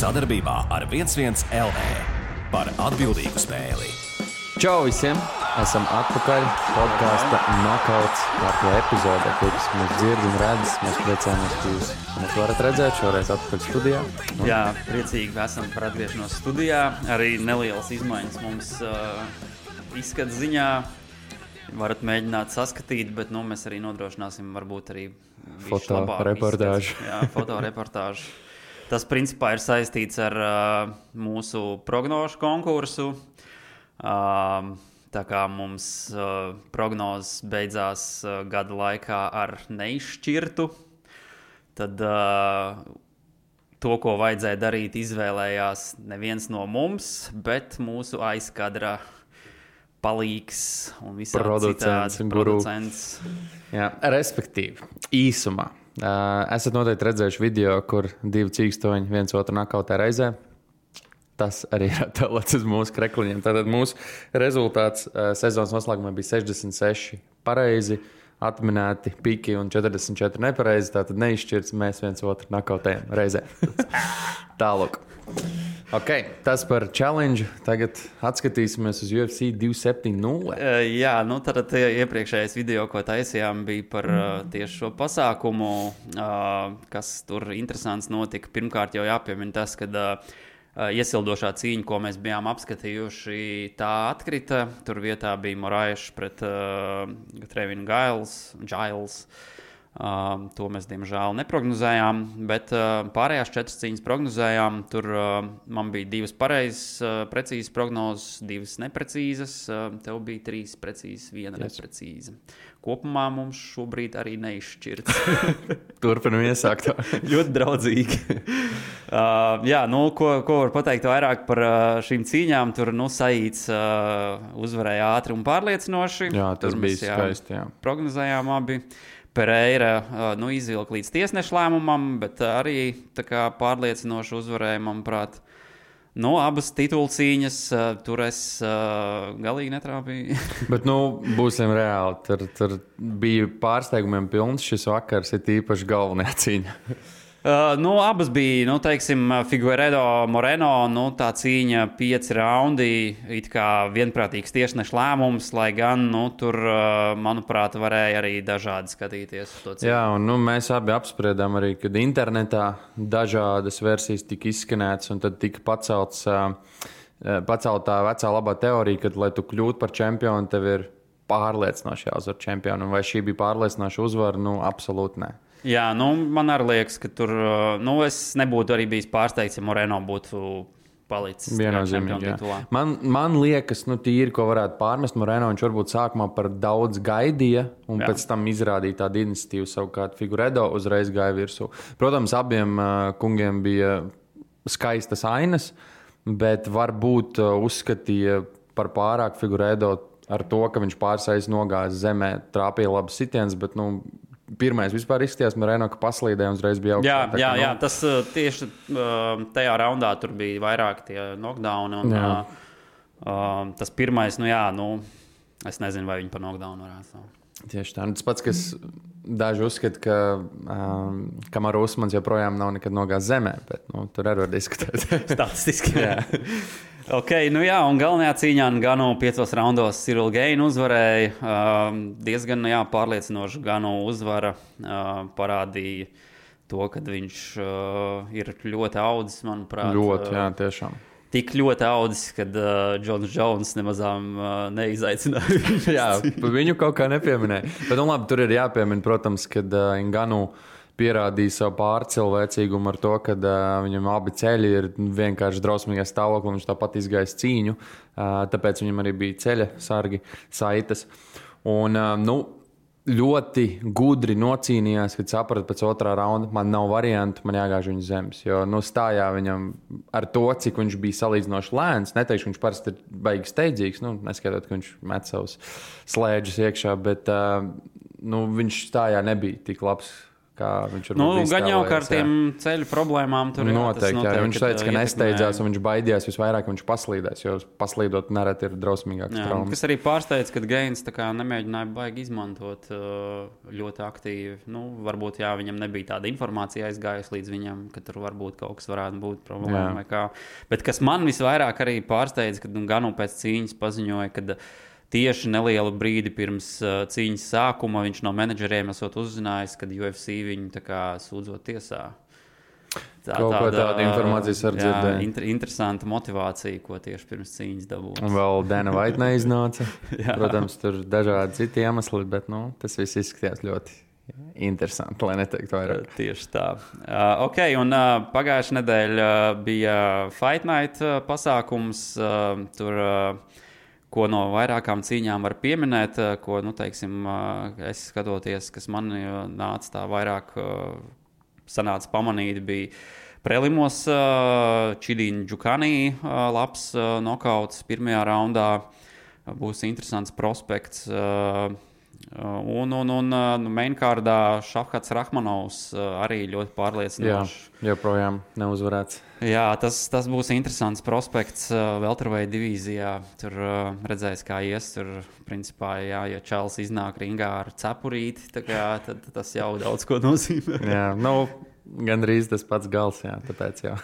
sadarbībā ar 11 LV par atbildīgu spēli. Čau visiem! Esam atpakaļ podkāsta Nokauts kārtībā epizodē, kurš mūs dzird un redz. Mēs priecājamies, ka jūs mūs varat redzēt šoreiz atpakaļ studijā. Jā, priecīgi esam par atgriešanos studijā. Arī nelielas izmaiņas mums izskats ziņā. Varat mēģināt saskatīt, bet mēs arī nodrošināsim varbūt arī fotoreportāžu. Jā, fotoreportāžu. Tas principā ir saistīts ar mūsu prognožu konkursu. Tā kā mums prognozes beidzās gada laikā ar neizšķirtu, tad to, ko vajadzēja darīt, izvēlējās neviens no mums, bet mūsu aizkadra palīgs un visādi citādi producents. Jā, respektīvi, īsumā. Esat noteikti redzējuši video, kur divi cīkstoņi viens otru nakautē reizē. Tas arī ir attēlots uz mūsu krekliņiem. Tātad mūsu rezultāts sezonas noslēgumā bija 66 pareizi, atminēti piki un 44 nepareizi. Tātad neizšķirts, mēs viens otru nakautējam reizē. Tālāk. Ok, tas par challenge. Tagad atskatīsimies uz UFC 270. Jā, tad iepriekšējais video, ko taisījām, bija par tieši šo pasākumu, kas tur interesants notika. Pirmkārt jau jāpiemina tas, ka iesildošā cīņa, ko mēs bijām apskatījuši, tā atkrita. Tur vietā bija Moraes pret Trevinu Giles. To mēs, diemžēl, neprognozējām, bet pārējās 4 cīņas prognozējām. Tur man bija 2 pareizas, precīzas prognozes, 2 neprecīzas. Tev bija 3 precīzas, 1 neprecīza. Kopumā mums šobrīd arī neizšķirts. Turpinam iesākt. Ļoti draudzīgi. Ko var pateikt vairāk par šīm cīņām? Tur Saīts uzvarēja ātri un pārliecinoši. Jā, tas bija skaisti. Jā. Prognozējām abi. Pereira izvilka līdz tiesneša lēmumam, bet arī tā kā pārliecinoši uzvarēja, manuprāt. Abas titulu cīņas tur es galīgi netrāpīju. Bet būsim reāli. Tur bija pārsteigumiem pilns šis vakars, ir īpaši galvenā cīņa. Abas bija, Figueiredo Moreno, tā cīņa 5 raundi, it kā vienprātīgs tiesneša lēmums, lai gan, tur, manuprāt, varēja arī dažādi skatīties uz to cīņu. Jā, un mēs abi apspriedām arī, kad internetā dažādas versijas tika izskanētas, un tad tika pacelta tā vecā labā teorija, ka, lai tu kļūtu par čempionu, tev ir pārliecinoši jāuzvar čempionu, un vai šī bija pārliecinoša uzvara? Absolūti nē. Jā, man arī liekas, ka tur, es nebūtu arī bijis pārsteigts, ja Moreno būtu palicis viennozīmīgi. Man liekas, tīri, ko varētu pārmest Moreno, viņš varbūt sākumā par daudz gaidīja, un pēc tam izrādīja tādu iniciatīvu, savukārt Figueiredo uzreiz gāja virsū. Protams, abiem kungiem bija skaistas ainas, bet varbūt uzskatīja par pārāk Figueiredo ar to, ka viņš pārsais nogājas zemē, trāpīja labas sitienas, bet, pirmais vispār izskatījās Moreno, ka paslīdēja un uzreiz bija augstāk. Jā, tas tieši tajā raundā tur bija vairāk tie knockdowni. Tas pirmais, es nezinu, vai viņi par knockdownu varētu. Tieši tā. Tas pats, kas daži uzskata, ka Kamaru Usmans joprojām nav nekad nogājis zemē, bet tur arī var diskutēt. Statistiski. Jā. Ok, un galvenajā cīņā Ganu 5 raundos Cyril Gane uzvarēja. Diezgan pārliecinoši Ganu uzvara parādīja to, ka viņš ir ļoti audzis, manuprāt. Ļoti, jā, tiešām. Tik ļoti audzis, kad Džons Jones nemazām neizaicināja. Jā, viņu kaut kā nepieminēja. Bet labi, tur ir jāpiemina, protams, kad Ganu pierādīja savu pārcilvēcīgumu ar to, ka viņam abi ceļi ir vienkārši drausmīgā stāvoklī, viņš tāpat izgājis cīņu, tāpēc viņam arī bija ceļa sargi, saites. Un, ļoti gudri nocīnījās, kad saprata pēc 2. raunda, man nav variantu, man jāgāž viņa zemes, jo stājā viņam ar to, cik viņš bija salīdzinoši lēns, neteikšu, viņš parasti ir baigi steidzīgs, neskatot, ka viņš met savus slēdžus iekšā, bet viņš stājā nebija tik labs, viņš gan jau kā ar tiem ceļu problēmām tur noteikti, jā. Viņš teica, ka nesteidzās un viņš baidījās visvairāk, ka viņš paslīdēs, jo paslīdot nereti ir drausmīgāks traumas. Kas arī pārsteidz, ka Gains nemēģināja baigi izmantot ļoti aktīvi. Varbūt viņam nebija tāda informācija aizgājusi līdz viņam, ka tur varbūt kaut kas varētu būt problēma vai kā. Bet kas man visvairāk arī pārsteidz, kad Ganu pēc cīņas paziņoja, ka tieši nelielu brīdi pirms cīņas sākuma viņš no menedžeriem esot uzzinājis, kad UFC viņu sūdzot tiesā. Tāda informācijas var dzirdēt. Interesanta motivācija, ko tieši pirms cīņas dabūja. Un vēl Dana White neiznāca. Protams, tur dažādi citi iemesli, bet tas viss izskatījās ļoti interesanti, lai neteiktu vairāk. Tieši tā. Un pagājušajā nedēļā bija Fight Night pasākums. Tur ko no vairākām cīņām var pieminēt, ko, es skatoties, kas man nāca tā vairāk sanāca pamanīt, bija prelimos Čidīna Džukani labs nokauts pirmajā raundā. Būs interesants prospekts. Un mainkārdā Šafkats Rahmanovs arī ļoti pārliecinoši. Jā, joprojām neuzvarēts. Jā, tas būs interesants prospekts welterweight divīzijā. Tur redzēs, kā ies. Tur, principā, ja Čels iznāk ringā ar cepurīti, tad tas jau daudz ko nozīmē. Jā, gandrīz tas pats gals, jā, tāpēc jau.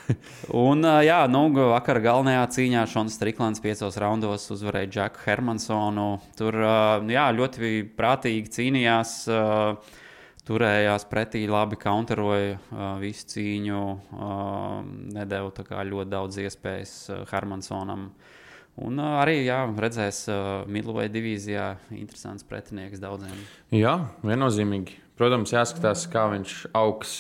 Un, vakar galvenajā cīņā Šons Striklands 5 raundos uzvarēja Džeku Hermansonu. Tur, ļoti prātīgi cīnījās, turējās pretī, labi counteroja visu cīņu, nedeva ļoti daudz iespējas Hermansonam. Un arī, redzēs middleweight divīzijā interesants pretinieks daudziem. Jā, viennozīmīgi. Protams, jāskatās, kā viņš augs,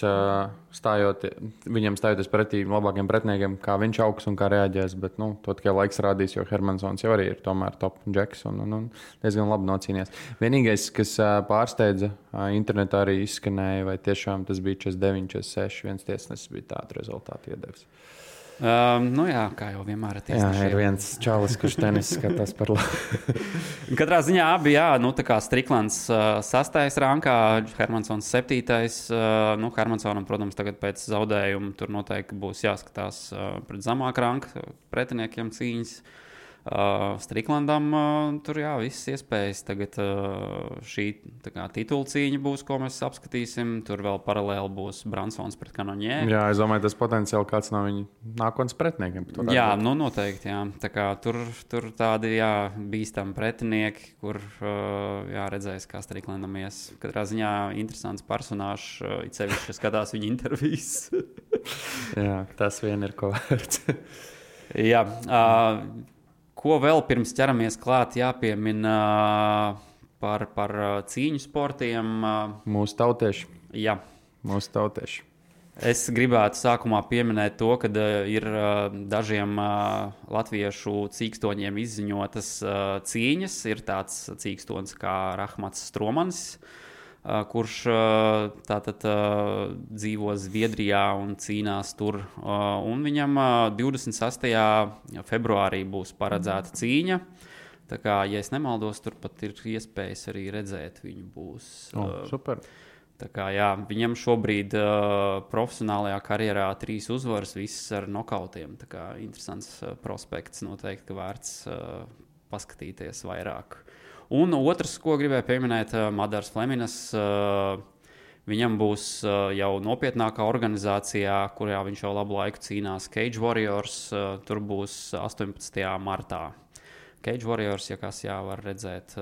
viņam stājoties pretī labākiem pretiniekiem, kā viņš augs un kā reaģēs. Bet to tikai laiks rādīs, jo Hermansons jau arī ir tomēr top džeks un diezgan labi nocīnījies. Vienīgais, kas pārsteidza, internetā arī izskanēja, vai tiešām tas bija 49, 46, viens tiesnesis bija tādu rezultātu iedevis. Kā jau vienmēr ir viens čalis, kurš tenis skatās par labu. Katrā ziņā abi, Striklands 6. rankā, Hermansons 7. Hermansonam, protams, tagad pēc zaudējuma tur noteikti būs jāskatās pret zemāku ranku pretiniekiem cīņas. Striklandam tur visas iespējas. Tagad šī titula cīņa būs, ko mēs apskatīsim. Tur vēl paralēli būs Bransons pret Kanonjē. Jā, es domāju, tas potenciāli kāds no viņa nākotnes pretiniekiem. Jā, noteikti. Jā. Tā kā tur tādi bīstami pretinieki, kur redzēs, kā Striklandam ies. Katrā ziņā interesants personāžs, it sevišķi skatās viņa intervijas. Jā, tas vien ir ko vērts. Jā, ko vēl pirms ķeramies klāt jāpiemina par cīņu sportiem? Mūsu tautieši. Jā. Mūsu tautieši. Es gribētu sākumā pieminēt to, ka ir dažiem latviešu cīkstoņiem izziņotas cīņas. Ir tāds cīkstonis kā Rahmats Stromanis, kurš dzīvo Zviedrijā un cīnās tur. Un viņam 26. februārī būs paredzēta cīņa. Tā kā, ja es nemaldos, tur pat ir iespējas arī redzēt viņu būs. Super. Tā kā, viņam šobrīd profesionālajā karjerā 3 uzvaras, visas ar nokautiem. Tā kā interesants prospekts, noteikti, ka vērts paskatīties vairāk. Un otrs, ko gribēju pieminēt, Madars Fleminas. Viņam būs jau nopietnākā organizācijā, kurā viņš jau labu laiku cīnās, Cage Warriors. Tur būs 18. martā. Cage Warriors, ja kas var redzēt.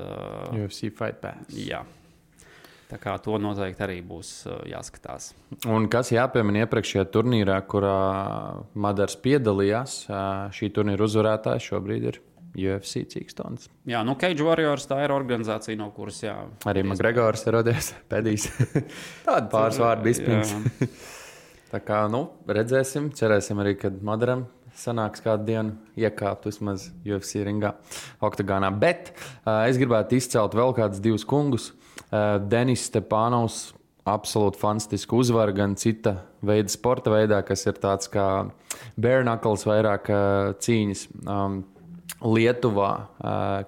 UFC Fight Pass. Jā. Tā kā to noteikti arī būs jāskatās. Un kas jāpiemina iepriekšējā turnīrā, kurā Madars piedalījās, šī turnīra uzvarētājs šobrīd ir UFC cīkstons. Jā, Cage Warriors tā ir organizācija, no kuras arī McGregors ir rodies pēdīs. Tāda pāris vārdu izpins. Tā kā, redzēsim, cerēsim arī, kad Madaram sanāks kādu dienu iekāpt vismaz UFC ringā, oktagānā. Bet es gribētu izcelt vēl kādus 2 kungus. Denis Stepanovs, absolūti fantastiska uzvara gan cita veida sporta veidā, kas ir tāds kā bare knuckles vairāk cīņas. Lietuvā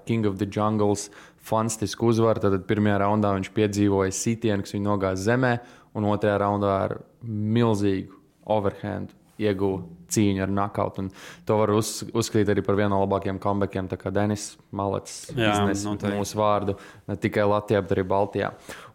King of the Jungles fantastisku uzvaru. Tad pirmajā raundā viņš piedzīvoja sitienu, kas viņu nogāza zemē, un otrajā raundā ar milzīgu overhand ieguva cīņu ar knockout. To var uzskatīt arī par vienu no labākajiem comebackiem, tā kā Denis Malets iznes mūsu vārdu ne tikai Latvijā, bet arī Baltijā.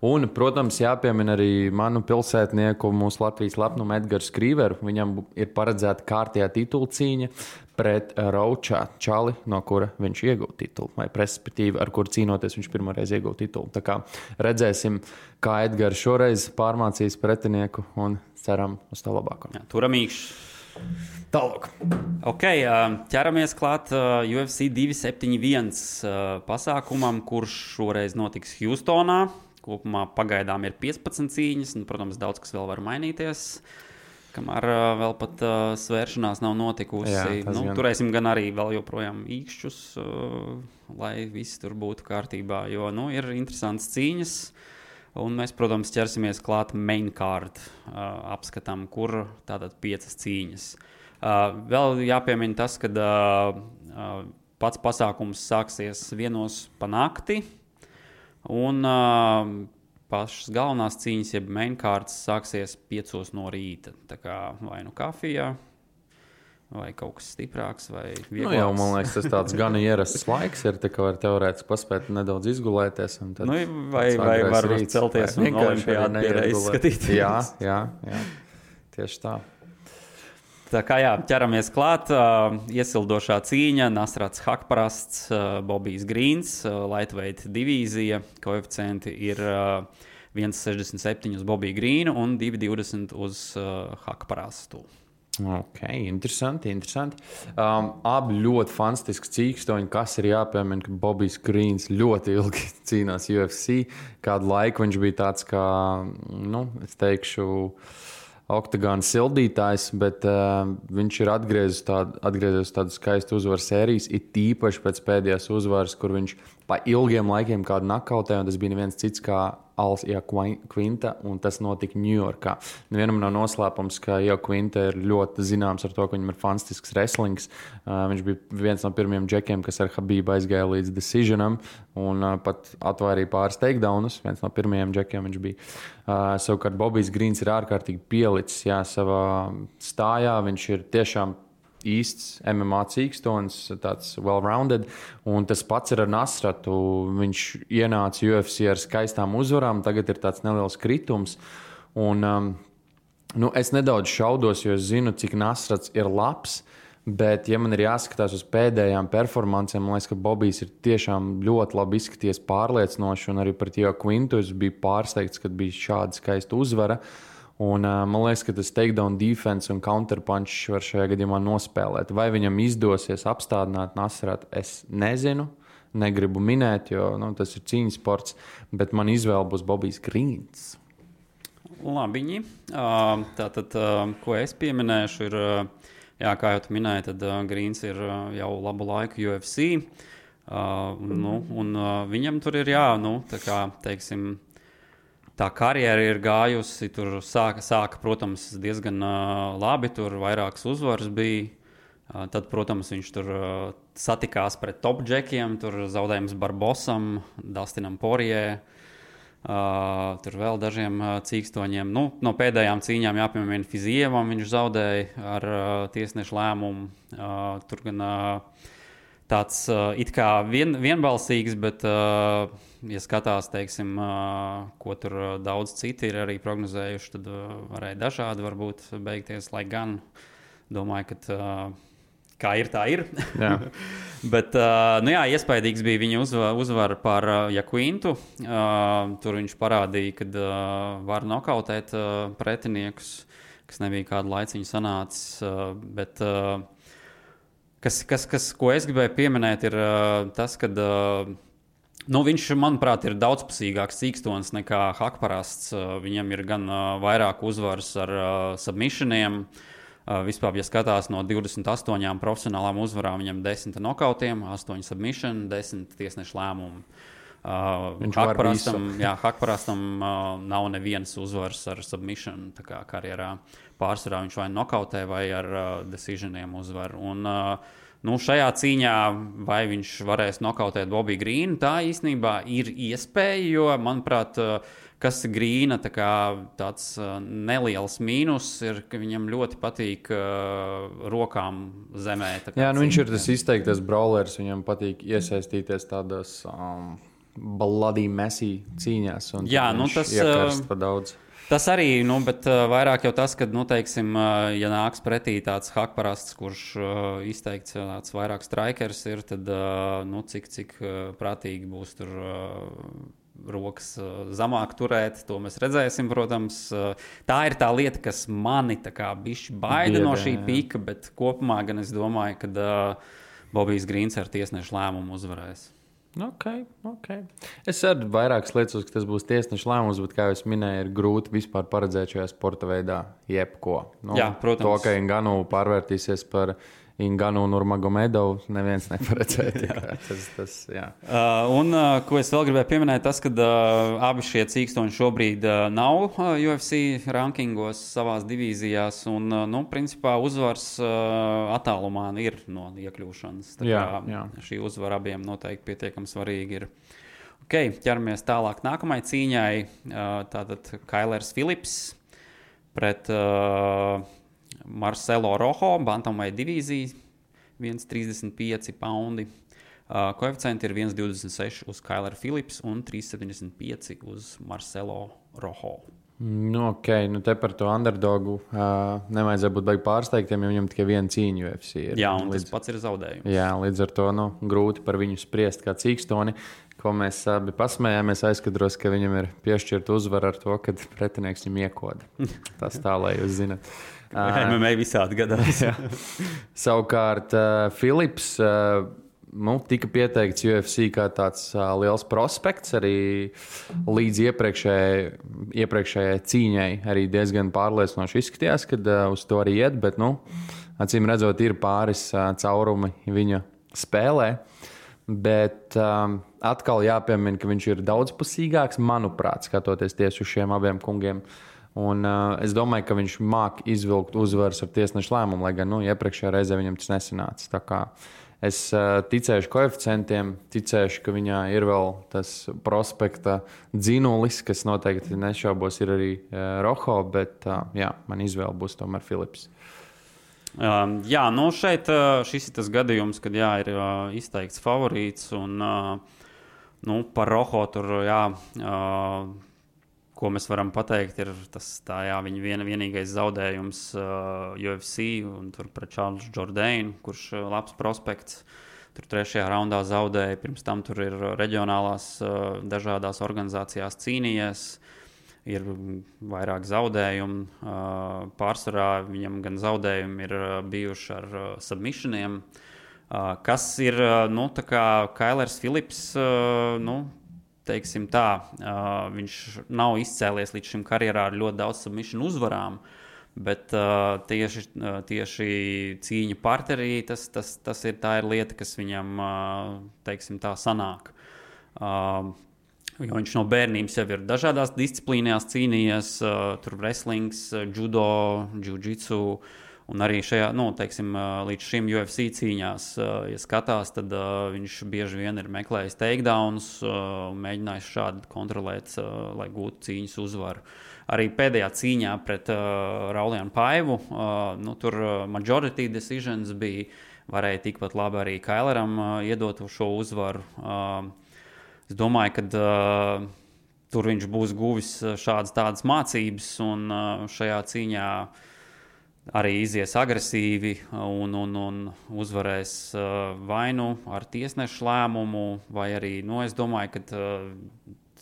Un, protams, jāpiemina arī manu pilsētnieku, mūsu Latvijas lepnumu Edgars Krīveru. Viņam ir paredzēta kārtējā titula cīņa pret Raučā Čali, no kura viņš iegūta titulu, vai respektīvi, ar kuru cīnoties viņš pirmoreiz iegūta titulu. Tā kā redzēsim, kā Edgars šoreiz pārmācīs pretinieku un ceram uz to labāko. Turamīgs. Tālāk. Ok, ķeramies klāt UFC 271 pasākumam, kurš šoreiz notiks Hjūstonā. Kopumā pagaidām ir 15 cīņas, un, protams, daudz kas vēl var mainīties, kamēr vēl pat svēršanās nav notikusi. Jā, turēsim gan arī vēl joprojām īkšķus, lai viss tur būtu kārtībā, jo ir interesants cīņas. Un mēs, protams, ķersimies klāt main card apskatam, kur tātad 5 cīņas. Vēl jāpiemina tas, ka pats pasākums sāksies 1:00 pa nakti, un pašas galvenās cīņas, jeb main cards, sāksies 5:00 no rīta. Tā kā vai kafijā, vai kaut kas stiprāks, vai vieglāks. Jau, man liekas, tas tāds gan ierasts laiks ir, tā kā var teorētiski paspēt nedaudz izgulēties. Vai varbūt celties un olimpiādu pierreiz skatīties. Jā, tieši tā. Tā kā ķeramies klāt, iesildošā cīņa, Nasrats Hakparasts, Bobijs Grīns, lightweight divīzija, koeficienti ir 1,67 uz Bobiju Grīnu un 2,20 uz Hakparastu. Ok, interesanti. Abi ļoti fantastiski cīkstoņi, kas ir jāpiemina, ka Bobijs Grīns ļoti ilgi cīnās UFC. Kādu laiku viņš bija tāds kā, es teikšu, oktagona sildītājs, bet viņš ir atgriezies tādu skaistu uzvaru sērijas, it īpaši pēc pēdējās uzvaras, kur viņš pa ilgiem laikiem kādu nakautē, un tas bija neviens cits kā Alsija Quinta, un tas notika Ņujorkā. Vienam nav noslēpums, ka Quinta ir ļoti zināms ar to, ka viņam ir fantastisks wrestlings. Viņš bija viens no pirmajiem džekiem, kas ar Habību aizgāja līdz decisionam, un pat atvairīja pāris takedownus. Viens no pirmajiem džekiem viņš bija. Savukārt Bobijs Grīns ir ārkārtīgi pielicis savā stājā. Viņš ir tiešām īsts MMA cīkstons, tāds well-rounded, un tas pats ir ar Nasratu. Viņš ienāca UFC ar skaistām uzvarām, tagad ir tāds neliels kritums, un es nedaudz šaudos, jo es zinu, cik Nasrats ir labs, bet, ja man ir jāskatās uz pēdējām performancēm, man liekas, ka Bobijs ir tiešām ļoti labi izskaties pārliecinoši, un arī pret Quintu es biju pārsteigts, kad bija šāda skaista uzvara. Un, man liekas, ka tas takedown defense un counterpunch var šajā gadījumā nospēlēt. Vai viņam izdosies apstādināt Nasratu, es nezinu. Negribu minēt, jo tas ir cīņas sports, bet man izvēle būs Bobijs Grīns. Labiņi. Tātad, ko es pieminēšu, ir, kā jau tu minēji, tad Grīns ir jau labu laiku UFC. Un viņam tur ir, tā kā, teiksim, tā karjera ir gājusi, tur sāka, protams, diezgan labi, tur vairākas uzvaras bija. Tad, protams, viņš tur satikās pret top džekiem, tur zaudējums Barbosam, Dustinam Porijai, tur vēl dažiem cīkstoņiem. No pēdējām cīņām jāpiemina Fizievam, viņš zaudēja ar tiesnešu lēmumu. Tur gan tāds it kā vienbalsīgs, bet, ja skatās, teiksim, ko tur daudz citi ir arī prognozējuši, tad varēja dažādi varbūt beigties, lai gan domāju, ka kā ir, tā ir. Bet, iespaidīgs bija viņa uzvara par Quintu. Tur viņš parādīja, ka var nokautēt pretiniekus, kas nebija kādu laiciņu sanācis, bet ko es gribēju pieminēt, ir tas, ka viņš, manuprāt, ir daudzpusīgāks cīkstons nekā Hakparasts. Viņam ir gan vairāk uzvaras ar submissioniem. Vispār, ja skatās no 28 profesionālām uzvarām, viņam 10 nokautiem, 8 submission, 10 tiesnešu lēmumu. Hakparastam nav nevienas uzvaras ar submission karjerā. Pārsvarā viņš vai nokautē, vai ar decisioniem uzvar. Un, šajā cīņā vai viņš varēs nokautēt Bobby Greenu, tā īstenībā ir iespēja, jo, manuprāt, kas Grīna tāds neliels mīnus ir, ka viņam ļoti patīk rokām zemē. Viņš ir tas izteiktais brawlers, viņam patīk iesaistīties tādos bloody messy cīņās. Tas iekarst pa daudz. Tas arī, bet vairāk jau tas, ka, teiksim, ja nāks pretī tāds Hakparasts, kurš izteikts tāds vairāk strikers ir, tad, cik prātīgi būs tur rokas zemāk turēt, to mēs redzēsim, protams. Tā ir tā lieta, kas mani bišķi baida no šī pika, bet kopumā gan es domāju, ka Bobijs Grīns ar tiesnešu lēmumu uzvarēs. Okay. Es arī vairākas lietas, ka tas būs tiesneša lēmums, bet, kā jau es minēju, ir grūti vispār paredzēt šajā sporta veidā jebko. Jā, protams. To, ka Ngannou pārvērtīsies par Ngannou Nurmagomedov, neviens neparedzēja. Ko es vēl gribēju pieminēt, tas, ka abi šie cīkstoņi šobrīd nav UFC rankingos savās divīzijās, un, principā uzvars attālumā ir no iekļūšanas. Šī uzvara abiem noteikti pietiekami svarīgi ir. Ķeramies tālāk nākamai cīņai. Tātad Kailers Phillips pret Marcelo Rojo, bantamweight divīzija, 1,35 paundi. Koeficienti ir 1,26 uz Kaileru Phillips un 3,75 uz Marcelo Rojo. Te par to underdogu nevajadzēja būt baigi pārsteigtiem, jo viņam tikai viena cīņa UFC ir. Jā, un tas pats ir zaudējums. Jā, līdz ar to grūti par viņu spriest kā cīkstoni, ko mēs abi pasmējāmies aizkadros, ka viņam ir piešķirta uzvara ar to, ka pretinieks viņam iekoda. Tas tā, lai jūs zinat. MMA visādi gadās. Savukārt Phillips tika pieteikts UFC kā tāds liels prospekts, arī līdz iepriekšējai cīņai arī diezgan pārliecinoši izskatījās, kad uz to arī iet, bet, acīm redzot, ir pāris caurumi viņa spēlē. Bet atkal jāpiemina, ka viņš ir daudzpusīgāks, manuprāt, skatoties tieši uz šiem abiem kungiem. Un, es domāju, ka viņš māk izvilkt uzvaras ar tiesnešu lēmumu, lai gan iepriekšējā reizē viņam tas nesanāca. Tā kā es ticēšu koeficientiem, ticēšu, ka viņā ir vēl tas prospekta dzinulis, kas noteikti nešaubos ir arī Rojo, bet man izvēle būs tomēr Phillips. Šeit šis ir tas gadījums, kad ir izteikts favorīts un par Rojo tur, ko mēs varam pateikt, ir tas viņa vienīgais zaudējums UFC un tur pret Charles Jourdainu, kurš labs prospekts. Tur 3. raundā zaudēja, pirms tam tur ir reģionālās dažādās organizācijās cīnījies. Ir vairāk zaudējumu. Pārsvarā viņam gan zaudējumi ir bijuši ar submissioniem. Kas ir, Kailers Phillips, teiksim tā, viņš nav izcēlies līdz šim karjerā ar ļoti daudz submission uzvarām, bet tieši cīņa parterī, tā ir lieta, kas viņam, teiksim tā, sanāk. Jo viņš no bērnības jau ir dažādās disciplīnās cīnījies, tur wrestlings, judo, jiu-jitsu, un arī šajā, līdz šim UFC cīņās, ja skatās, tad viņš bieži vien ir meklējis takedowns un mēģinājis šādi kontrolēt, lai gūtu cīņas uzvaru. Arī pēdējā cīņā pret Raulianu Paivu, tur majority decisions varēja tikpat labi arī Kaileram iedot šo uzvaru. Es domāju, ka tur viņš būs guvis tādas mācības un šajā cīņā arī izies agresīvi un uzvarēs vai ar tiesnešu lēmumu, vai arī, es domāju, ka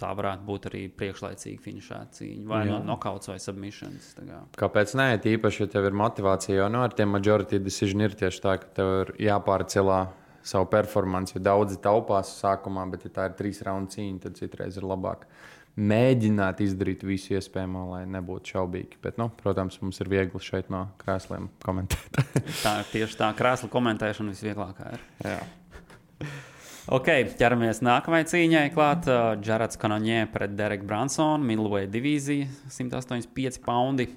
tā varētu būt arī priekšlaicīga finišēta cīņa, vai nokauts vai submissions. Kāpēc nē, tīpaši, ja tev ir motivācija, jo ar tiem majority decision ir tieši tā, ka tev ir jāpārcelā savu performanci, jo daudzi taupās sākumā, bet ja tā ir 3 raundu cīņa, tad citreiz ir labāk mēģināt izdarīt visu iespējamo, lai nebūtu šaubīgi. Bet, protams, mums ir viegli šeit no krēsliem komentēt. Tā ir tieši tā, krēsla komentēšana visvieglākā ir. Jā. Ok, ķeramies nākamajai cīņai klāt. Jareds Cannonier pret Dereku Bransonu, middleweight divīzija, 185 poundi.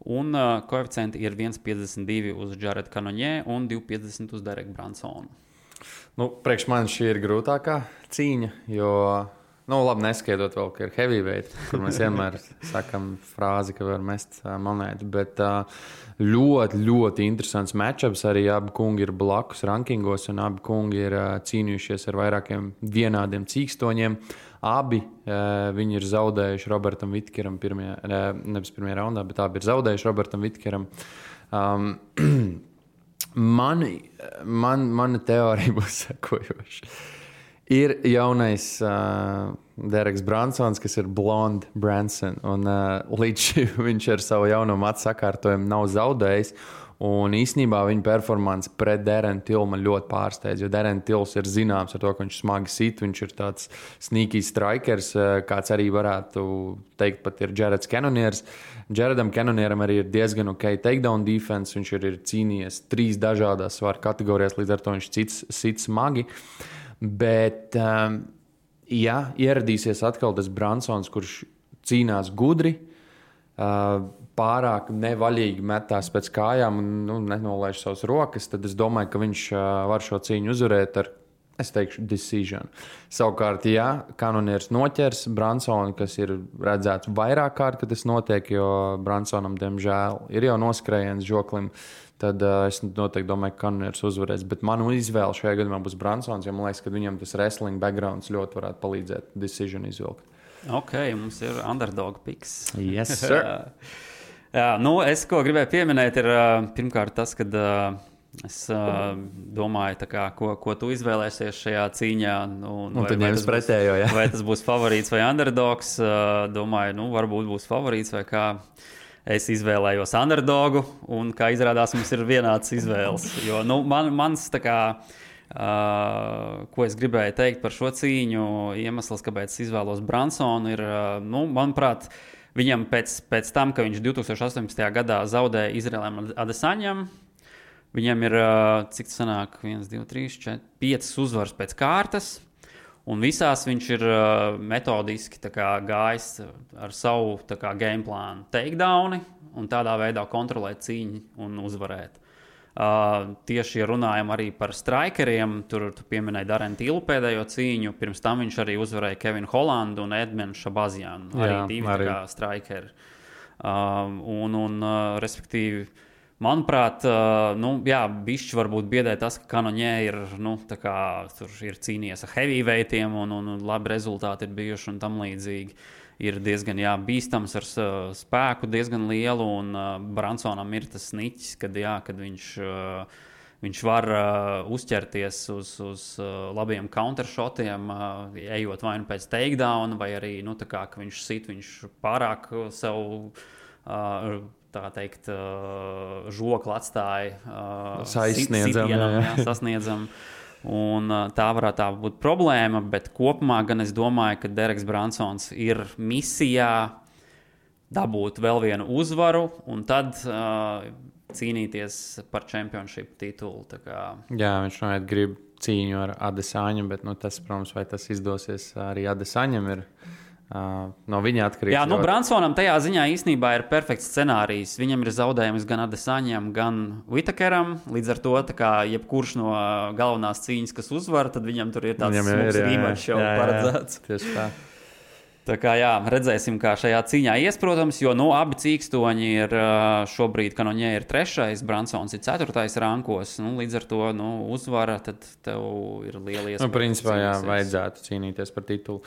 Un koeficienti ir 1,52 uz Jaredu Cannonier un 2,50 uz Dereku Bransonu. Nu, priekš man šī ir grūtākā cīņa, jo, labi, neskaidrot vēl, ka ir heavyweight, kur mēs vienmēr sakam frāzi, ka var mest monētu, bet ļoti, ļoti interesants matchups. Arī abi kungi ir blakus rankingos, un abi kungi ir cīnījušies ar vairākiem vienādiem cīkstoņiem. Abi viņi ir zaudējuši Robertam Vitkeram nevis pirmajā raundā, bet abi ir zaudējuši Robertam Vitkeram. Mana teorija būs sekojoša. Ir jaunais Dereks Bransons, kas ir Blonde Branson, un līdz šim viņš ar savu jauno matu sakārtojumu nav zaudējis. Un īsnībā viņa performance pret Darren Tillu man ļoti pārsteidz, jo Darren Tills ir zināms ar to, ka viņš smagi sit, viņš ir tāds sneaky strikers, kāds arī varētu teikt pat ir Jareds Cannoniers. Jaredam Cannonieram arī ir diezgan ok takedown defense, viņš ir cīnījies 3 dažādās svaru kategorijās, līdz ar to viņš sit smagi. Bet, ja ieradīsies atkal tas Bransons, kurš cīnās gudri, pārāk nevaļīgi metās pēc kājām un nenolaiž savas rokas, tad es domāju, ka viņš var šo cīņu uzvarēt ar, es teikšu, decision. Savukārt, ja Cannoniers noķers Bransonu, kas ir redzēts vairāk kārt, kad tas notiek, jo Bransonam, diemžēl, ir jau noskrējiens žoklim, tad es noteikti domāju, ka Cannoniers uzvarēs. Bet manu izvēle šajā gadījumā būs Bransons, jo man liekas, ka viņam tas wrestling backgrounds ļoti varētu palīdzēt decision izvilkt. Ok, mums ir underdog picks. Yes, sir. Jā, es, ko gribēju pieminēt, ir pirmkārt tas, ka es domāju, ko tu izvēlēsies šajā cīņā. Tad ņems pretējo, jā. Vai tas būs favorīts vai underdogs. Domāju, varbūt būs favorīts vai kā. Es izvēlējos underdogu, un kā izrādās, mums ir vienāds izvēles. Jo mans ko es gribēju teikt par šo cīņu, iemesls, kāpēc es izvēlos Bransonu, ir, manuprāt, viņam pēc tam, ka viņš 2018. gadā zaudēja Izraēlam Adesaņam, viņam ir, cik tas sanāk, 1, 2, 3, 4, 5 uzvaras pēc kārtas, un visās viņš ir metodiski gājis ar savu game plānu takedowni, un tādā veidā kontrolēt cīņu un uzvarēt. Tieši runājam arī par strikeriem. Tur tu pieminēji Darren Tillu pēdējo cīņu. Pirms tam viņš arī uzvarēja Kevinu Hollandu un Edmenu Šabazianu. Arī divi strikeri. Respektīvi, manuprāt, bišķi varbūt biedē tas, ka Cannonier ir, tur ir cīnījies ar heavyweightiem un labi rezultāti ir bijuši un tam līdzīgi. Ir diezgan bīstams ar spēku, diezgan lielu, un Bransonam ir tas niķis, kad viņš var uzķerties uz labiem countershotiem, ejot vai nu pēc takedown, vai arī, ka viņš sit, viņš pārāk sev, tā teikt, žokli atstāja sasniedzam. Un tā varētu būt problēma, bet kopumā gan es domāju, ka Dereks Bransons ir misijā dabūt vēl vienu uzvaru un tad cīnīties par championship titulu. Jā, viņš noteikti grib cīņu ar Adesaņu, bet tas, protams, vai tas izdosies arī Adesaņam ir no viņa atkarīgs. Jā, Bransonam tajā ziņā īstenībā ir perfekts scenārijs. Viņam ir zaudējums gan Adesaņam, gan Whittakeram. Līdz ar to, jebkurš no galvenās cīņas, kas uzvar, tad viņam tur ir tāds smuks rematch jau paredzēts. Tieši tā. Tā kā redzēsim, kā šajā cīņā ies, protams, jo abi cīkstoņi ir šobrīd, Cannonier ir 3., Bransons ir 4. rankos. Līdz ar to uzvara, tad tev ir liela iespēja. Principā, vajadzētu cīnīties par titulu.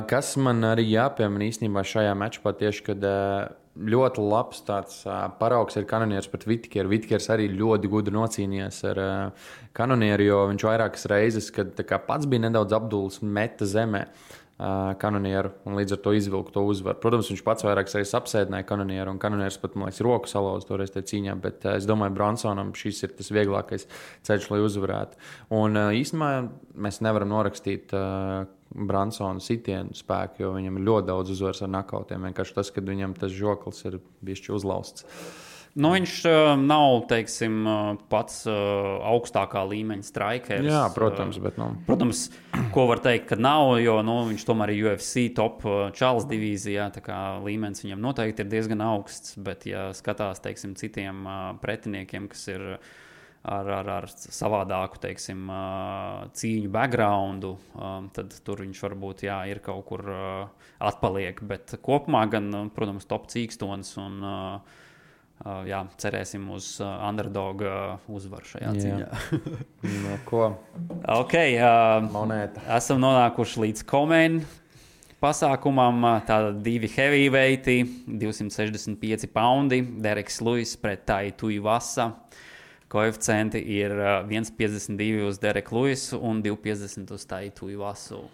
Kas man arī jāpiemina īstenībā šajā matčā tieši, kad ļoti labs tāds paraugs ir Cannoniers pret Whittakeru. Whittakers arī ļoti gudri nocīnījies ar Cannonieru, jo viņš vairākas reizes, kad pats bija nedaudz apdulis, meta zemē Cannonieru un līdz ar to izvilku to uzvaru. Protams, viņš pats vairākas reizes apsēdināja Cannonieru, un Cannonieris pat, man liekas, roku salauza toreiz tajā cīņā, bet es domāju, Bransonam šis ir tas vieglākais ceļš, lai uzvarētu. Un īstenībā mēs nevaram norakstīt Bransona sitienu spēku, jo viņam ir ļoti daudz uzvaras ar nakautiem. Vienkārši tas, kad viņam tas žoklis ir bišķi uzlausts. Nu, viņš nav, teiksim, pats augstākā līmeņa strikeris. Jā, protams, bet Protams, ko var teikt, ka nav, jo viņš tomēr ir UFC top čalis divīzijā, tā kā līmenis viņam noteikti ir diezgan augsts, bet ja skatās, teiksim, citiem pretiniekiem, kas ir ar savādāku, teiksim, cīņu backgroundu, tad tur viņš varbūt, ir kaut kur atpaliek, bet kopumā gan, protams, top cīkstons un cerēsim uz underdog uzvaru šajā cīņā. No ko? Ok, Monēta. esam nonākuši līdz Komen pasākumam. Tātad 2 heavyweighti, 265 poundi, Dereks Lewis pret Tai Tuivasa. Koeficienti ir 1,52 uz Dereku Lewisu un 2,50 uz Tai Tuivasu.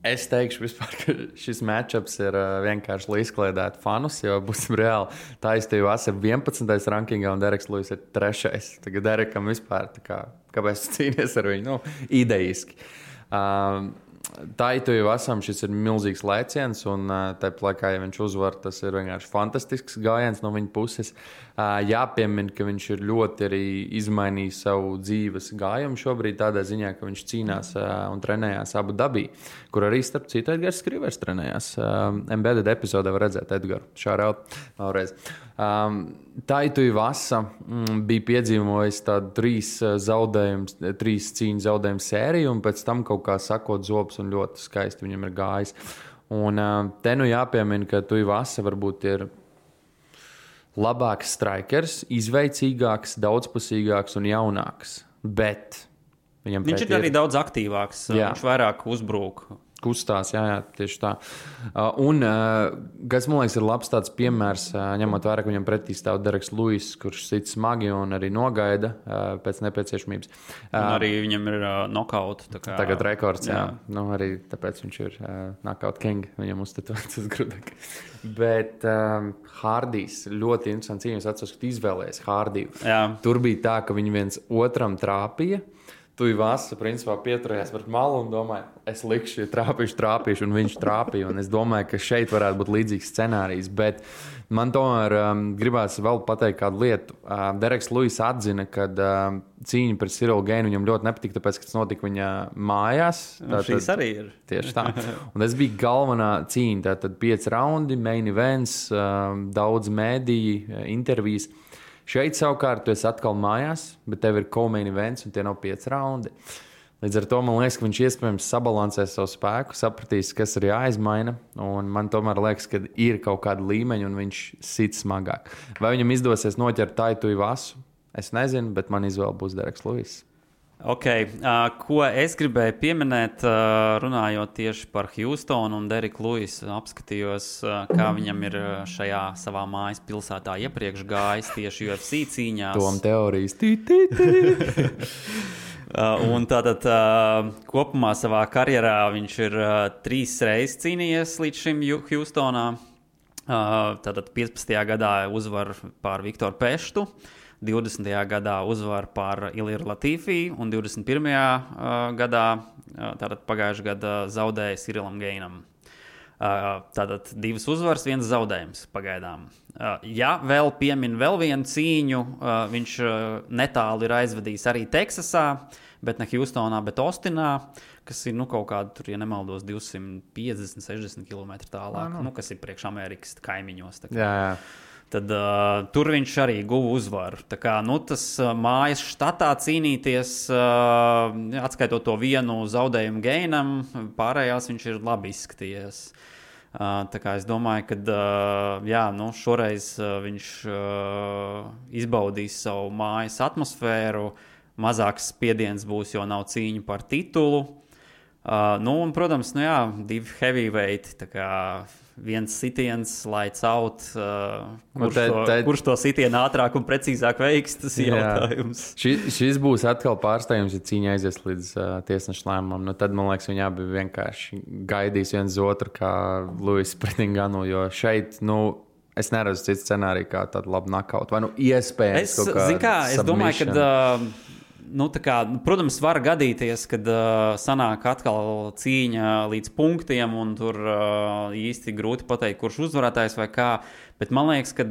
Es teikšu, vispār, ka šis matchups ir vienkārši lai izkliedētu fanus, jo būsim reāli. Tuivasa ir 11. rankingā un Dereks Lewis ir 3. Tagad Derekam vispār, kāpēc cīnies ar viņu? Idejiski. Tuivasam šis ir milzīgs lēciens, un tāpat laikā, ja viņš uzvar, tas ir vienkārši fantastisks gājiens no viņa puses. Jāpiemina, ka viņš ir ļoti arī izmainījis savu dzīves gājumu šobrīd tādā ziņā, ka viņš cīnās un trenējās Abu Dabī, kur arī, starp citu, Edgars Skrivers trenējās. Embedded epizodē var redzēt Edgaru. Šāraut vēlreiz. Tuivasa bija piedzīvojis tādu 3 cīņu zaudējumu sēriju, un pēc tam kaut kā sakot zobus, un ļoti skaisti viņam ir gājis. Un te jāpiemina, ka Tuivasa varbūt ir labāks strikers, izveicīgāks, daudzpusīgāks un jaunāks. Bet viņš ir arī daudz aktīvāks. Jā. Viņš vairāk uzbrūk. Kustās, jā, tieši tā. Un, kas man liekas, ir labs tāds piemērs, ņemot vērā, ka viņam pretī stāv Dereks Lewis, kurš sit smagi un arī nogaida pēc nepieciešamības. Un arī viņam ir knockout. Tagad rekords, jā. Arī tāpēc viņš ir knockout king, viņam uzstatots uz grudaka. Bet Hardijs ļoti interesants cīņas, atceros, ka izvēlējies Hardiju. Tur bija tā, ka viņi viens otram trāpīja. Tuivasa, principā, pieturējās pret malu un domāja, es likšu, ja trāpīšu, un viņš trāpīja. Un es domāju, ka šeit varētu būt līdzīgs scenārijs. Bet man tomēr gribās vēl pateikt kādu lietu. Dereks Lewis atzina, ka cīņa pret Cyrilu Gainu viņam ļoti nepatika, tāpēc, ka tas notika viņa mājās. Šīs arī ir. Tieši tā. Un tas bija galvenā cīņa. Tātad 5 raundi, main events, daudz mēdīju, intervijas. Šeit savukārt tu esi atkal mājās, bet tev ir co-main events un tie nav 5 raundi. Līdz ar to man liekas, ka viņš iespējams sabalansēs savu spēku, sapratīs, kas ir jāizmaina. Un man tomēr liekas, ka ir kaut kāda līmeņa un viņš sit smagāk. Vai viņam izdosies noķert Tai Tuivasu? Es nezinu, bet man izvēle būs Dereks Lewis. Ok, ko es gribēju pieminēt, runājot tieši par Houstonu un Dereku Lewisu, apskatījos, kā viņam ir šajā savā mājas pilsētā iepriekš gājis tieši UFC cīņās. Tom teorijas. Un tātad kopumā savā karjerā viņš ir 3 reizes cīnījies līdz šim Houstonā. Tātad 15. gadā uzvar pār Viktoru Peštu. 20. gadā uzvar pār Iliru Latīfī un 21. gadā, tātad pagājušajā gadā zaudēja Cyrilam Gainam. Tātad 2 uzvaras, 1 zaudējums pagaidām. Ja vēl piemin vēl vienu cīņu, viņš netālu ir aizvadījis arī Teksasā, bet ne Houstonā, bet Austinā, kas ir kaut kāda, tur, ja nemaldos, 250-60 km tālāk, kas ir priekš Amerikas kaimiņos. Jā. Tad tur viņš arī guva uzvaru. Tā kā, tas mājas štatā cīnīties, atskaitot to vienu zaudējumu Gainam, pārējās viņš ir labi izskatījies. Tā kā es domāju, ka šoreiz viņš izbaudīs savu mājas atmosfēru, mazāks spiediens būs, jo nav cīņa par titulu. Un, protams, 2 heavyweighti, tā kā viens sitiens, lights out, kurš to sitienu ātrāk un precīzāk veiks, tas ir jautājums. Šis būs atkal pārsteigums, ja cīņa aizies līdz tiesneša lēmumam. Tad, man liekas, viņi abi vienkārši gaidīs viens otru kā Lewis pret Nganu, jo šeit, es neredzu citu scenāriju kā tādu labu knockout. Vai iespējams es domāju, ka protams, var gadīties, kad sanāk atkal cīņa līdz punktiem, un tur īsti grūti pateikt, kurš uzvarētājs vai kā. Bet man liekas, ka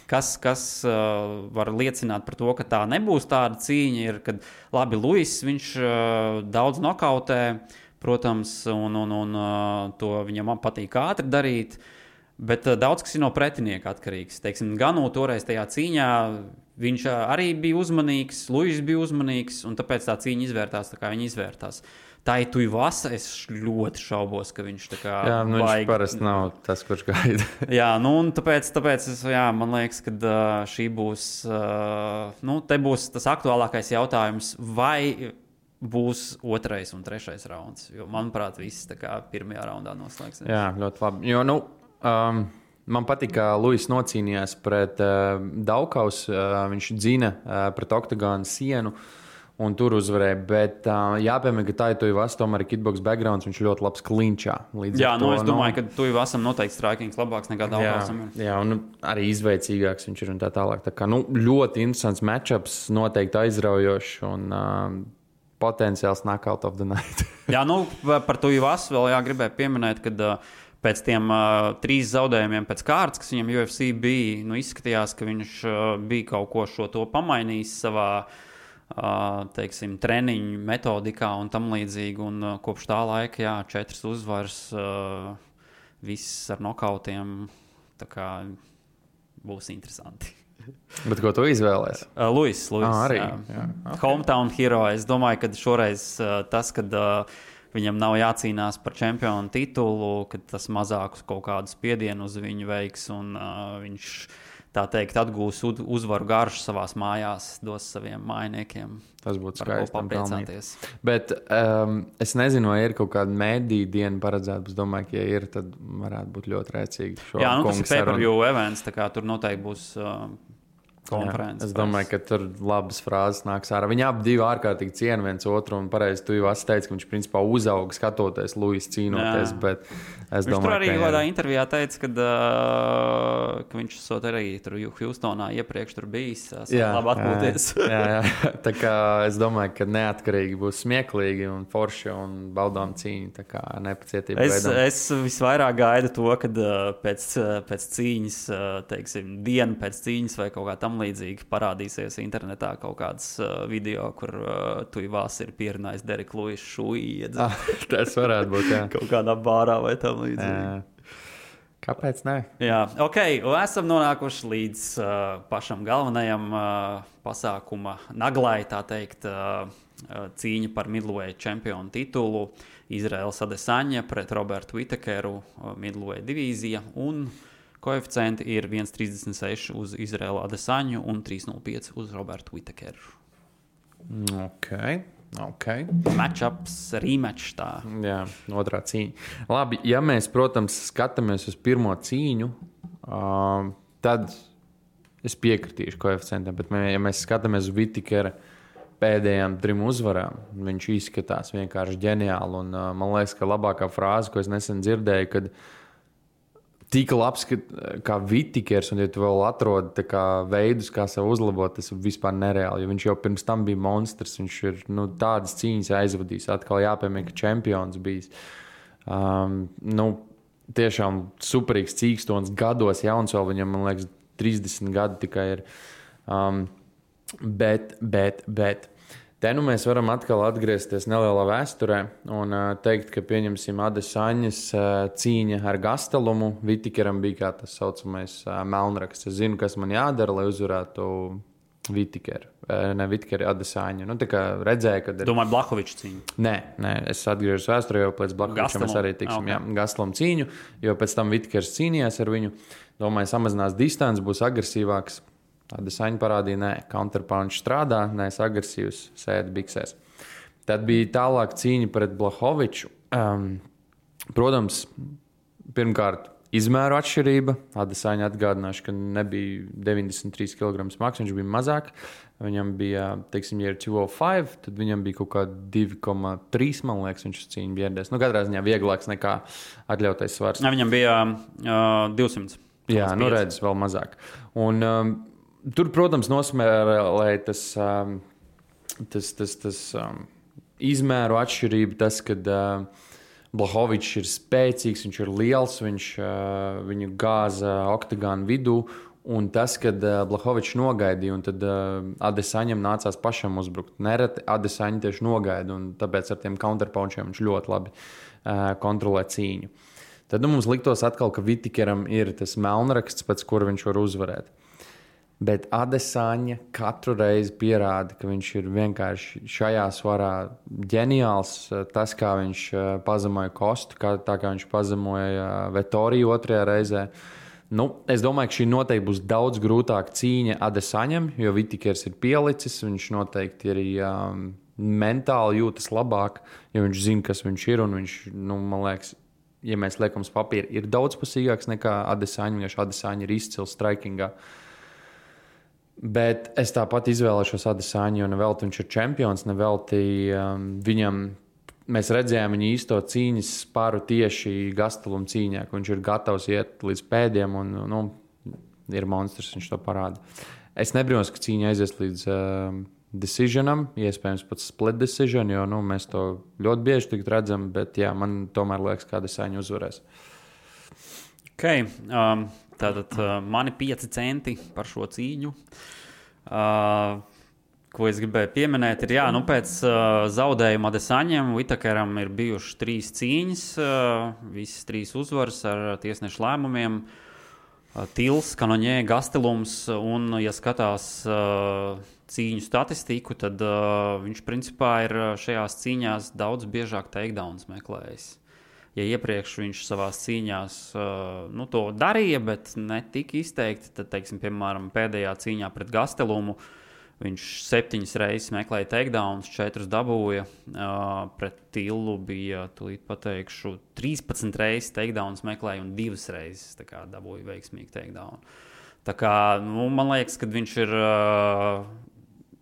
kas var liecināt par to, ka tā nebūs tāda cīņa, ir, kad labi Luis, viņš daudz nokautē, protams, un to viņam patīk ātri darīt. Bet daudz kas ir no pretinieka atkarīgs. Teiksim, Ganu toreiz tajā cīņā viņš arī bija uzmanīgs, Luis bija uzmanīgs, un tāpēc tā cīņa izvērtās tā, kā viņa izvērtās. Tā ir Tuivasa, es ļoti šaubos, ka viņš tā kā viņš parasti nav tas, kurš gaida. Jā, un tāpēc man liekas, ka šī būs, te būs tas aktuālākais jautājums, vai būs 2. un 3. rauns, jo, manuprāt, viss tā kā 1. raundā noslēgsies. Jā, ļoti labi, jo, man patīk, ka Luis nocīnījās pret Daukaus, viņš dzina pret oktagonu sienu un tur uzvarēja, bet jāpiemēr, ka tā ir Tuivasa, tomēr ir kickbox backgrounds, viņš ļoti labs klinčā. Jā, es domāju, ka Tuivasam noteikti strikings labāks nekā Daukausam. Jā, un arī izveicīgāks viņš ir un tā tālāk. Tā kā, ļoti interesants matchups, noteikti aizraujošs un potenciāls knockout of the night. Jā, par Tuivasu vēl gribēju pieminēt, kad pēc tiem 3 zaudējumiem pēc kārtas, kas viņam UFC bija, izskatījās, ka viņš bija kaut ko šo to pamainījis savā, teiksim, treniņu metodikā un tam līdzīgi. Un kopš tā laika, 4 uzvaras, viss ar nokautiem, tā kā būs interesanti. Bet ko tu izvēlēsi? Luis, arī. Jā. Okay. Hometown hero. Es domāju, ka šoreiz tas, kad viņam nav jācīnās par čempionu titulu, kad tas mazākus kaut kādu spiedienu uz viņu veiks, un viņš, tā teikt, atgūs uzvaru garšu savās mājās, dos saviem mājiniekiem. Tas būtu skaisti. Papriecāties. Bet es nezinu, vai ir kaut kāda mēdīja diena paredzēta. Es domāju, ka, ja ir, tad varētu būt ļoti rēcīgi. Jā, tas ir pay-per-view events, tā kā tur noteikti būs konferences. Es domāju, ka tur labas frāzes nāks ārā. Viņi abi ārkārtīgi ciena viens otru, un pareizi Tuivasa teica, ka viņš principā uzauga skatoties Luis cīnoties, bet es domāju, viņš tur arī kādā intervijā teica, ka viņš esot arī tur Houstonā iepriekš tur bijis, labi atpūties. Jā. Tā kā es domāju, ka neatkarīgi būs smieklīgi un forši un baudām cīņu, tā kā nepacietība veidam. Es visvairāk gaidu to, kad pēc cīņas, teiksim, dienu pēc cīņas vai kaut kā tam līdzīgi parādīsies internetā kaut kāds video, kur Tuivasa ir pierunājis Dereku Luisu šūju. Tas varētu būt, jā. Kaut kādā bārā vai tam līdzīgi. Kāpēc ne? Jā, ok, esam nonākuši līdz pašam galvenajam pasākuma naglai, tā teikt, cīņa par middleweight čempionu titulu. Izraels Adesaņa pret Robertu Whittakeru, middleweight divīzija, un koeficienti ir 1,36 uz Izraelu Adesaņu un 3,05 uz Robertu Whittakeru. Ok. Matchups, rematch tā. Jā, otrā cīņa. Labi, ja mēs, protams, skatāmies uz pirmo cīņu, tad es piekritīšu koeficientiem, bet ja mēs skatāmies uz Whittakera pēdējām 3 uzvarām, viņš izskatās vienkārši ģeniāli, un man liekas, ka labākā frāze, ko es nesen dzirdēju, kad tik labs, kā Whittakers, un ja tu vēl atrodi veidus, kā sev uzlabot, tas ir vispār nereāli, jo viņš jau pirms tam bija monstrs, viņš ir tādas cīņas aizvadījis, atkal jāpiemēr, ka čempions bijis. Tiešām superīgs cīkstons gados, jauns vēl viņam, man liekas, 30 gadi tikai ir. Bet te mēs varam atkal atgriezties nelielā vēsturē un teikt, ka pieņemsim Adesaņas cīņa ar Gastelumu. Whittakeram bija kā tas saucamais melnraksts. Es zinu, kas man jādara, lai uzvarētu Whittakeru. Ne Whittakeru, Adesaņu. Tā kā redzēju, kad ir... Domāju, Blahoviča cīņu. Nē, es atgriežos vēsturē, jo pēc Blahoviča mēs arī tiksim. Okay. Jā, Gastelumu cīņu, jo pēc tam Whittakers cīnījās ar viņu. Domāju, samazinās distanci, būs agresīvāks. Adesaņa parādīja, nē, counterpunch strādā, neesmu agresīvs, sēdi biksēs. Tad bija tālāk cīņa pret Blahoviču. Protams, pirmkārt, izmēru atšķirība. Adesaņa atgādināšu, ka nebija 93 kg smags, viņš bija mazāk. Viņam bija, teiksim, ja ir 205, tad viņam bija kaut kā 2,3, man liekas, viņš cīņu biedēs. Katrā ziņā vieglāks nekā atļautais svars. Viņam bija 200. Jā, redz, vēl mazāk. Un tur, protams, nosmērēja tas izmēru atšķirība, tas, kad Blachowicz ir spēcīgs, viņš ir liels, viņu gāza oktagānu vidū. Un tas, kad Blachowicz nogaidīja, un tad Adesaņam nācās pašam uzbrukt. Nereti Adesaņa tieši nogaida, un tāpēc ar tiem counterpunchiem viņš ļoti labi kontrolē cīņu. Tad mums liktos atkal, ka Vitikeram ir tas melnraksts, pēc kura viņš var uzvarēt. Bet Adesaņa katru reizi pierāda, ka viņš ir vienkārši šajā svarā ģeniāls. Tas, kā viņš pazemoja Kostu, tā kā viņš pazemoja Vettoriju otrajā reizē. Es domāju, ka šī noteikti būs daudz grūtāka cīņa Adesaņam, jo Vitikers ir pielicis. Viņš noteikti arī mentāli jūtas labāk, jo viņš zina, kas viņš ir. Un viņš, man liekas, ja mēs liekam uz papīra, ir daudzpusīgāks nekā Adesaņa. Vienkārši Adesaņa ir izcils strikingā. Bet es tāpat izvēlēšos Adesaņu, jo nevelti viņš ir čempions, nevelti viņam. Mēs redzējām viņa īsto cīņas spāru tieši Gasteluma cīņā, ka viņš ir gatavs iet līdz pēdiem un ir monstrs, viņš to parāda. Es nebrīnos, ka cīņa aizies līdz decisionam, iespējams pat split decision, jo mēs to ļoti bieži tik redzam, bet jā, man tomēr liekas, ka Adesaņa uzvarēs. Okay. Tātad mani 5 centi par šo cīņu. Ko es gribēju pieminēt, ir, pēc zaudējuma Adesaņam, Whittakeram ir bijušas 3 cīņas, visas 3 uzvaras ar tiesnešu lēmumiem. Tils, Kanoņē, Gastelums, un, ja skatās cīņu statistiku, tad viņš principā ir šajās cīņās daudz biežāk takedowns meklējis. Ja iepriekš viņš savās cīņās to darīja, bet ne tik izteikti, tad, piemēram, pēdējā cīņā pret Gastelumu viņš 7 reizes meklēja takedowns, 4 dabūja. Pret Tilu bija, tūlīt pateikšu, 13 reizes takedowns meklēja un 2 reizes dabūja veiksmīgi takedown. Tā kā, man liekas, ka viņš ir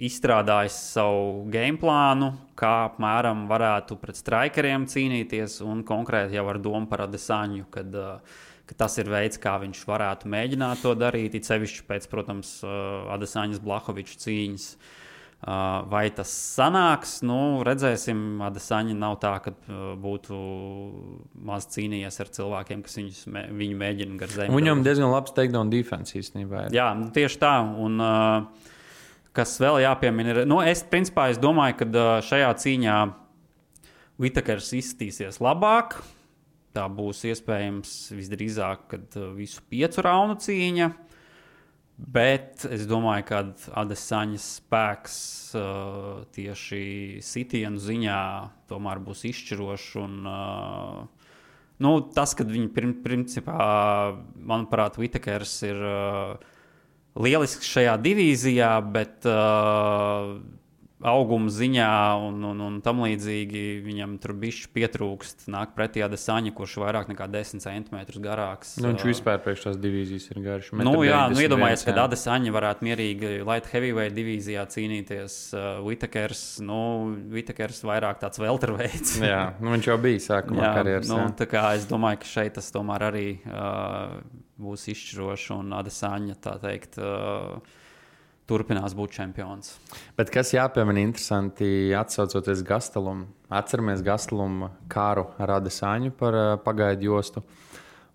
izstrādājis savu game plānu, kā apmēram varētu pret strikeriem cīnīties, un konkrēti jau ar domu par Adesaņu, kad tas ir veids, kā viņš varētu mēģināt to darīt, it sevišķi pēc, protams, Adesaņas Blachowicz cīņas. Vai tas sanāks? Redzēsim. Adesaņa nav tā, ka būtu maz cīnījies ar cilvēkiem, kas viņu mēģina gar zemi. Viņam diezgan labs takedown defense īstenībā. Jā, tieši tā. Un kas vēl jāpiemina ir, es domāju, ka šajā cīņā Whittakers izskatīsies labāk. Tā būs iespējams visdrīzāk, kad visu 5 raundu cīņa, bet es domāju, ka Adesaņas spēks tieši sitienu ziņā tomēr būs izšķirošs. Un, tas, kad viņi principā, manuprāt, Whittakers ir lielisks šajā divīzijā, bet auguma ziņā un tam līdzīgi viņam tur bišķi pietrūkst. Nāk pretī Adesaņa, kurš vairāk nekā 10 centimetrus garāks. Viņš vispār priekš tās divīzijas ir garš. Iedomājies, ka Adesaņa varētu mierīgi light heavyweight divīzijā cīnīties. Whittakers vairāk tāds welterweights. Jā, viņš jau bija sākumā karjeras. Tā kā es domāju, ka šeit tas tomēr arī būs izšķiroši, un Adesaņa, tā teikt, turpinās būt čempions. Bet kas jāpiemina interesanti, atsaucoties Gastelumu. Atceramies Gastelumu kāru ar Adesaņu par pagaidu jostu.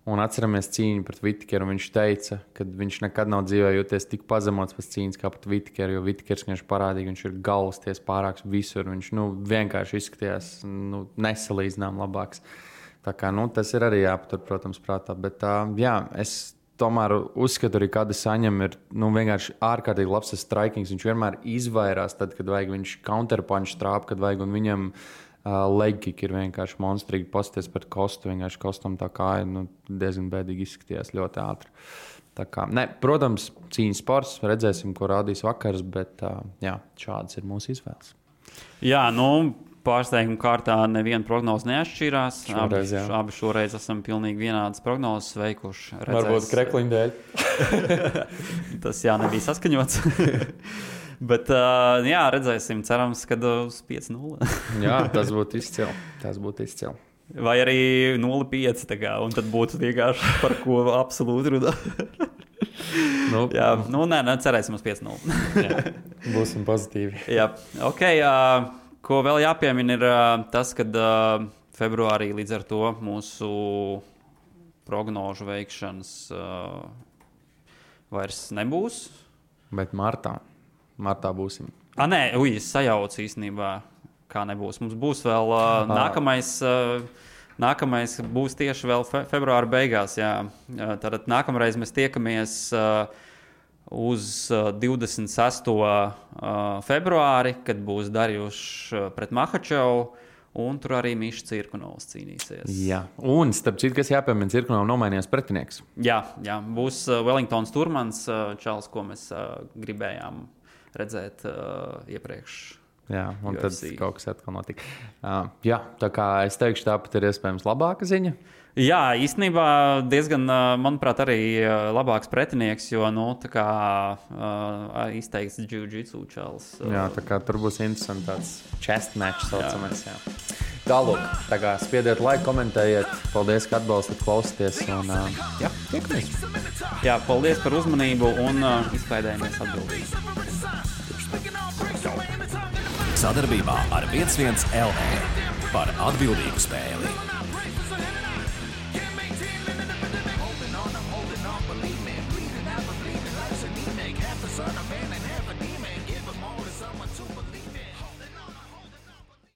Un atceramies cīņu pret Whittakeru. Viņš teica, ka viņš nekad nav dzīvē jūties tik pazemots pēc cīņas kā pret Whittakeru, jo Whittakers viņš parādīja, ka viņš ir galvasties pārāks visur. Viņš vienkārši izskatījās nesalīdzinām labāks. Tā kā tas ir arī jāpatur, protams, prātā. Bet es tomēr uzskatu arī, ka Adesaņam ir vienkārši ārkārtīgi labs strikings. Viņš vienmēr izvairās tad, kad vajag, viņš counterpunch trāp, kad vajag, un viņam leg kick ir vienkārši monstrīgi. Pasties pret Kostu, vienkārši Kostam tā kāja diezgan bēdīgi izskatījās ļoti ātri. Tā kā, protams, cīņas sports, redzēsim, ko rādīs vakars, bet šādas ir mūsu izvēles. Jā, pārsteiguma kārtā neviena prognoze neatšķirās. Abi šoreiz esam pilnīgi vienādas prognozes veikuši. Varbūt krekliņu dēļ. Tas nebija saskaņots. Bet redzēsim, cerams, ka uz 5-0. Jā, tas būtu izcili. Vai arī 0-5, un tad būtu vienkārši par ko absolūti runāt. Jā, cerēsim uz 5-0. Būsim pozitīvi. Jā, ok. Ko vēl jāpiemina ir tas, ka februārī līdz ar to mūsu prognožu veikšanas vairs nebūs. Bet martā būsim. Nē, es sajaucu īstenībā, kā nebūs. Mums būs vēl nākamais būs tieši vēl februāra beigās. Jā. Tātad nākamreiz mēs tiekamies uz 26. Februāri, kad būs Darjušs pret Mahačovu, un tur arī Mišs Cirkunovs cīnīsies. Jā, un starp citu, kas jāpiemina, Cirkunovam nomainījās pretinieks. Jā, būs Wellingtons Turmans, čalis, ko mēs gribējām redzēt iepriekš. Jā, un UFC. tad kaut kas atkal notika. Jā, tā kā es teikšu, tāpat ir iespējams labāka ziņa. Jā, īstenībā diezgan, manuprāt, arī labāks pretinieks, jo, tā kā izteikts jiu-jitsu čalis. Jā, tā kā tur būs interesants tāds chest match saucamais. Jā. Tālūk, tā kā spiediet laiku, komentējiet. Paldies, ka atbalstat, klausieties. Un, jā, tiekamies. Jā, paldies par uzmanību un izklaidējamies atbildīgi. Sadarbībā ar 11 LV par atbildīgu spēli.